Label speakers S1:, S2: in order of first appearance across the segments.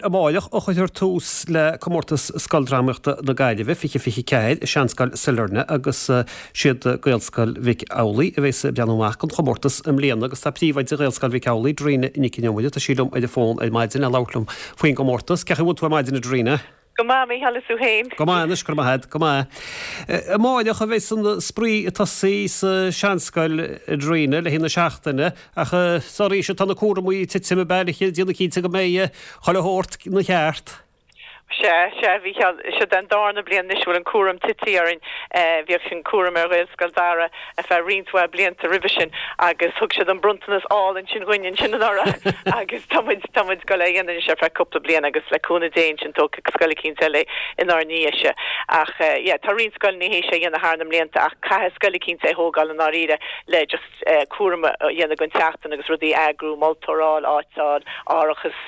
S1: amáireach a chuirfear tús le Comórtas Scoildrámaíochta na Gaillimhe 2024 i Seanscoil Sailearna agus siad Gaelscoil Mhic Amhlaigh a bheas ag breathnú amach don chomórtas i mbliana agus tá príomhoide Ghaelscoil Mhic Amhlaigh, Darina Nic an Iomaire, tá sí liom ar an bhfón ar maidin le labhairt liom faoin gcomórtas. Cén chaoi a bhfuil tú ar maidin, a Darina?
S2: Go maith, a Mhícheáil, is tú féin?
S1: Go maith anois, go raibh maith agat, go maith. Amáireach a bheas an spraoi ag tosaí sa Seanscoil, a Darina, le haghaidh na seachtaine, ach is oraibhse atá na cúramaí ag titim ab ea le déanamh cinnte go mbeidh chuile shórt ina cheart.
S2: Sea, sea, a Mhícheáil, seo an darna bliain anois a bhfuil an cúram tití orainn. Bhíodh an cúram ar Ghaelscoil Dara ar feadh roinnt mhaith blianta roimhe sin agus thug siad an bronntanas álainn sin dhuinn ansin anuraidh agus tá muid, tá muid ag dul é a dhéanamh anois ar feadh cúpla bliain agus le cúnamh Dé ansin tógfaidh scoil eicínt eile é inár ndiaidh-se. Ach yeah, tá roinnt scoileanna théis é a dhéanamh thar na mblianta ach caithfidh scoil eicínt é a thógáil i ndáiríre le just cúram a dhéanamh den tseachtain agus rudaí a eagrú, moltóir a fháil, áit a fháil, árachas,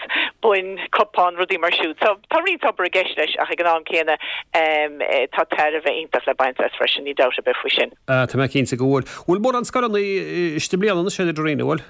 S2: boinn, cupáin, rudaí mar siúd. So tá roinnt obair i gceist leis ach ag an am céanna tá tairbhe iontach le baint as freisin, níl dabht ar bith faoi sin.
S1: Ah, tá mé cinnte go bhfuil. Bhfuil mórán scoileanna istigh i mbliana anois a Darina, bhfuil?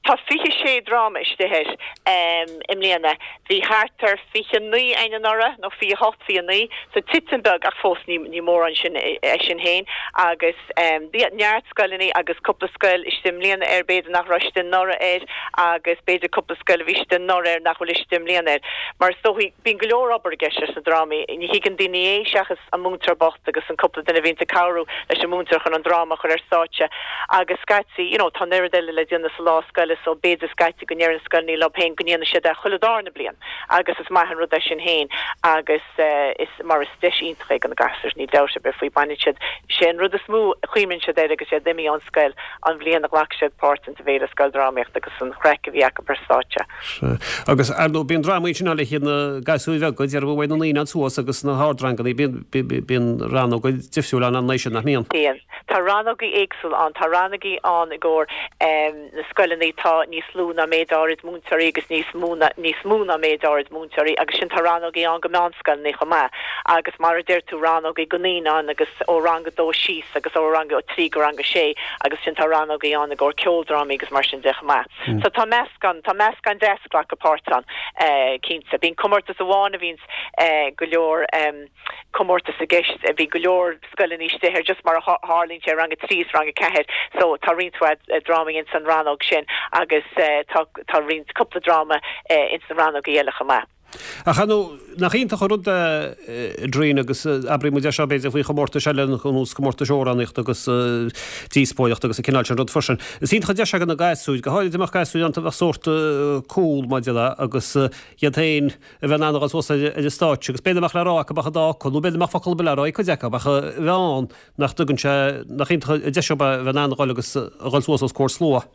S2: Tá 26 dráma istigh air i mbliana. Bhí thart ar 29 againn anuraidh, nó 28, 29, so titim beag ach fós ní ní mórán sin é sin féin. Agus bhí neart scoileanna agus cúpla scoil istigh i mbliana air, b'fhéidir nach raibh istigh anuraidh air agus b'fhéidir cúpla scoil a bhí istigh anuraidh air nach bhfuil istigh i mbliana air. Mar is dóichí, bíonn go leor obair i gceist leis na drámaí. Ní thuigeann daoine é seachas an múinteoir bocht agus an cúpla duine a bhíonns ag cabhrú leis an múinteoir chun an dráma a chur ar stáitse agus scaití, you know, tá an oiread eile le déanamh sa lá scoile so b'fhéidir scaití go ndeireann scoileanna leo féin go ndéanfaidh siad é chuile dárna bliain agus is maith an rud é sin féin agus is, mar is deis iontach é do na gasúir, níl dabht ar bith faoi, baineann siad, sé an rud is mó a chuimhníonn siad air agus iad imithe ón scoil, an bhliain a ghlac siad páirt insa bhFéile Scoildrámaíochta agus an chraic a bhí acu ar stáitse.
S1: Sea. Agus, ar ndóigh, bíonn drámaí ansin le haghaidh na gasúir bheaga, déarfainn uaidh na naíonáin suas agus na hardranganna, bíonn, bíonn rannóga difriúla ann an sin, nach mbíonn?
S2: Bíonn. Tá rannógaí éagsúla ann. Tá rannógaí ann i gcomhair na scoileanna atá níos lú ná méid áirid múinteoirí agus níos mó ná, níos mó ná méid áirid múinteoirí agus sin tá rannógaí ann go meánscoileanna chomh maith agus mar a deir tú rannógaí go naíonáin agus ó rang a dó síos agus ó rang a trí go rang a sé agus sin tá rannógaí ann i gcomhair ceoldrámaí agus mar sin de chomh maith. So tá meascán, tá meascán deas ag glacadh páirt ann, cinnte. Bíonn comórtas amháin a bhíonns go leor comórtas i gceist, bhí go leor scoileanna istigh air just mar a tharlaíonn sé, rang a 3 is rang a 4, so tá roinnt mhaith drámaí ins an rannóg sin agus tá, tá roinnt, cúpla dráma ins na rannógaí eile chomh maith.
S1: Ach ar ndóigh, nach iontach an rud é, a Darina, agus abraíonn muid é seo b'fhéidir faoi chomórtais eile ar nós comórtais amhránaíochta agus díospóireachta agus an cineál sin rud freisin. Is iontach an deis é do na gasúir, go háirid dá mbeadh gasúir ann a bheadh sórt cúl maidir le agus iad féin a bheith in ann a dhul suas ar an stáitse agus b'fhéidir nach mbeadh le rá acu ach an dá fhocal nó b'fhéidir nach mbeadh focal ar bith le rá ag cuid acu ach a bheith ann nach dtugann sé, nach iontach an deis é a bheith in ann a dhul agus a dhul suas os comhair slua.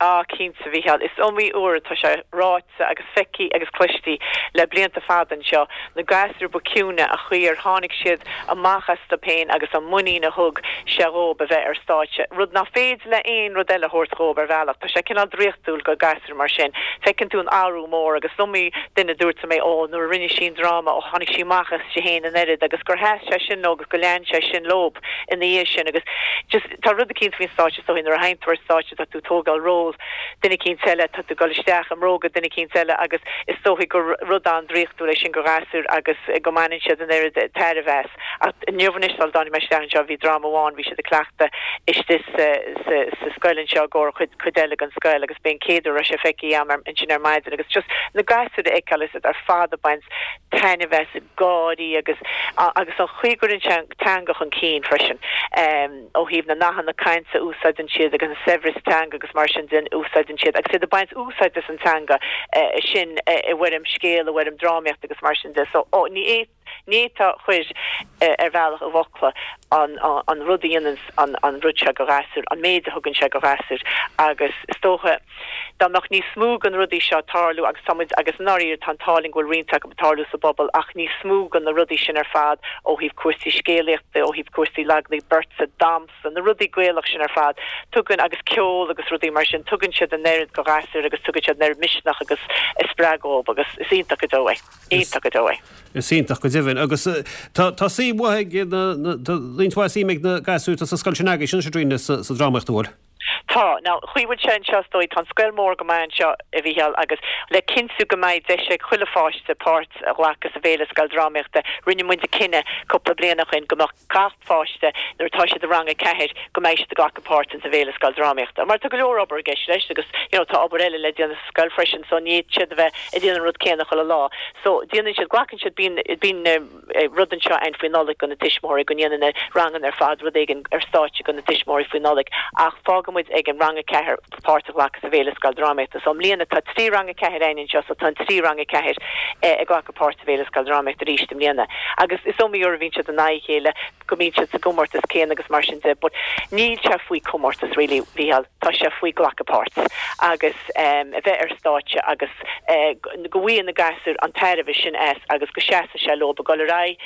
S2: Ah, cinnte, a Mhícheáil. Is iomaí uair atá sé ráite agus feicthe agus cloiste le blianta fada anseo, na gasúir ba ciúine, an chaoi ar tháinig siad amach astu féin agus an muinín a thug sé dhóib a bheith ar stáitse, rud nach féidir le aon rud eile a thabhairt dhóib ar bhealach. Tá sé cineál draíochtúil go gasúir mar sin. Feiceann tú an athrú mór agus is iomaí duine a dúirt liom é, ó, nuair a rinne sí an dráma, ó, tháinig sí amach aisti féin an oiread agus gur sheas sé sin leo agus go lean sé sin leob ina dhiaidh sin agus just tá rud eicínt faoin stáitse is dóigh nuair a théann tú ar stáitse tá tú ag tógáil ról duine eicínt eile, tá tú ag dul isteach i mbróga duine eicínt eile agus is dóichí gur rud an-draíochtúil é sin go ghasúir agus go mbaineann siad an oiread tairbhe as. Ach inniu anois sula dtáinig mé isteach anseo bhí dráma amháin, bhí siad ag cleachtadh istigh sa sa sa scoil anseo i gcomhair chuid cuid eile den scoil agus b'é an chéad uair a raibh sé feicthe agam ansin ar maidin agus just na gasúir a fheiceáil is iad ar fad ag baint taitneamh as ag gáirí agus agus an chaoi a gcuireann sé an teanga chun cinn freisin. ó thaobh na nathanna cainte a úsáideann siad agus an saibhreas teanga agus mar sin de a úsáideann siad agus iad ag baint úsáid as an teanga sin i bhfoirm scéil, i bhfoirm drámaíochta agus mar sin de. So, ní ní fhéadfá a chur ar bhealach i bhfocla an an rud a dhéanann an an rud seo go ghasúir, an méid a thugann sé go ghasúir agus is dócha dá mbeadh níos mó de na rudaí seo ag tarlú agus tá muid, agus i ndáiríre tá an t-ádh linn go bhfuil roinnt acu ag tarlú sa bpobal ach níos mó de na rudaí sin ar fad ó thaobh cúrsaí scéalaíochta, ó thaobh cúrsaí laglaí beirte, damhsa, na rudaí Gaelach sin ar fad, tugann, agus ceol agus rudaí mar sin, tugann siad an oiread go ghasúir agus tugann siad an oiread misneach agus spreagadh dhóibh agus is iontach go deo é. Iontach go deo é.
S1: Is iontach go deimhin. Agus tá tá suim mhaith ag na, tá roinnt mhaith suim ag na gasúir atá sa scoil sin agaibhse anois a Darina sa drámaíocht an bhfuil?
S2: Tá. Now, chaoi bhfuil sé anseo is dóigh, tá an scoil mór go maith anseo, a Mhícheáil, agus le cinntiú go mbeidh deis ag chuile pháiste páirt a ghlacadh sa bhFéile Scoildrámaíochta, rinne muid cinneadh cúpla bliain ó shin go mbeadh gach pháiste, nuair atá siad i rang a ceathair, go mbeidh siad ag glacadh páirt ins an bhFéile Scoildrámaíochta. Mar tá go leor obair i gceist leis agus, you know, tá obair eile le déanamh sa scoil freisin so ní fhéadfaidh siad a bheith ag déanamh an rud céanna chuile lá. So, déanann siad, glacann siad, bíonn, bíonn. rud anseo ann faoi Nollaig do na tuismitheoirí, go ndéanann na ranganna ar fad rud éigin ar stáitse do na tuismitheoirí faoi Nollaig ach fágann muid ag an rang 4 páirt a ghlacadh sa bhFéile Scoildrámaíochta. So i mbliana tá 3 rang 4 againn anseo so tá an 3 rang 4 ag glacadh páirt sa bhFéile Scoildrámaíochta arís i mbliana. Agus is iomaí uair a bhíonn siad in aghaidh a chéile, go mbíonn siad sa gcomórtas céanna agus mar sin de but níl sé faoi comórtas really, Mhícheál, tá sé faoi glacadh páirt agus a bheith ar stáitse agus go bhfaigheann na gasúir an tairbhe sin as agus go seasfaidh sé leo ag dul ar aghaidh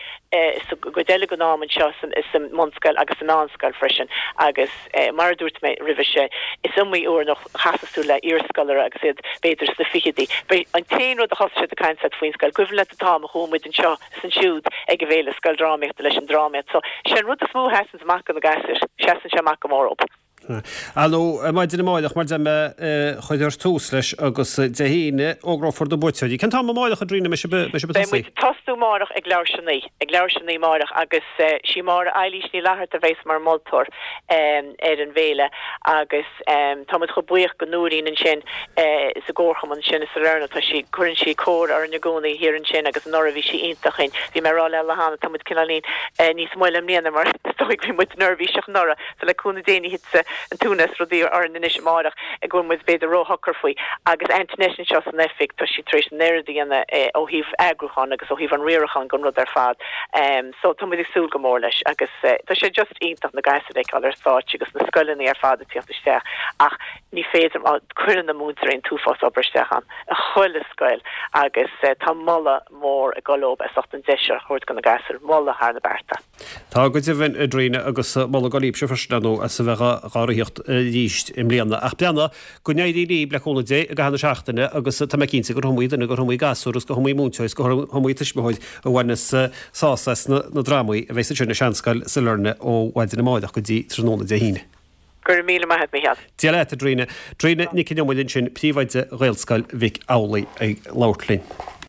S2: sa gcuid eile den am anseo sa mbunscoil agus sa meánscoil freisin agus mar a dúirt mé roimhe seo is iomaí uair nach chasas tú le iarscolaire agus iad b'fhéidir sna fichidí an t-aon rud a thosaigh siad ag caint leat faoin scoil cuimhin leat an t-am a chuaigh muid anseo is ansiúd ag an bhFéile Scoildrámaíochta leis an drámaíocht so sé an rud is mó a sheasanns amach do na gasúir seasann sé amach go mór dóibh.
S1: Ar ndóigh, maidin amáireach, mar deir mé, cuirfear tús leis agus Dé hAoine, fógrófar na buaiteoirí. Cén t-am amáireach, a Thríona, a mbeidh sibh ag
S2: Beidh tosaí? muid ag tosnú amáireach ag leathuair théis a naoi, ag leathuair théis a naoi amáireach agus sí Máire Eilís Ní Fhlatharta a bheas mar mholtóir ar an bhféile agus tá muid chomh buíoch go Nóirín ansin sa gcomharchumann sin i Salerno, tá sí, cuireann sí cóir orainn i gcónaí thiar ansin agus anuraidh bhí sí iontach againn. Bhí mé ag rá léi cheana, tá muid cineáilín níos moille i mbliana mar is dóigh bhí muid neirbhíseach anuraidh. So le cúnamh Dé ní thitfidh an t-ionadh is rudaí orainn anois amáireach go bhfuil muid b'fhéidir ró-shocair faoi. Agus Antoinette anseo san oifig, tá sí tar éis an oiread a dhéanamh ó thaobh eagrúcháin agus ó thaobh an riaracháin den rud ar fad. So tá muid ag súil go mór leis agus tá sé just iontach na gasúir a fheiceáil ar stáitse agus na scoileanna ar fad ag tíocht isteach ach ní féidir, cuireann na múinteoirí an t-uafás obair isteach ann i chuile scoil agus tá moladh mór ag dul leob as ucht an deis seo a thabhairt do na gasúir, moladh thar na bearta.
S1: Tá go deimhin, a Thríona, agus moladh ag dul libhse freisin, ar ndóigh, as a bheith dhá ritheacht arís i mbliana. Ach breathnaigh, go n-éirí libh, le cúnamh Dé, i gcaitheamh na seachtaine agus tá mé cinnte gur iomaí duine, gur iomaí gasúr agus go hiomaí múinteoir is go hiomaí tuismitheoir a bhaineas sásamh as na drámaí a bheas ansin i Seanscoil Sailearna ó mhaidin amárach go dtí tráthnóna Dé hAoine.
S2: Go raibh míle maith agat, Mícheál.
S1: Dia leat, a Thríona. Tríona Nic Con Iomaire ansin, príomhoide Ghaelscoil Mhic Amhlaigh ag labhairt linn.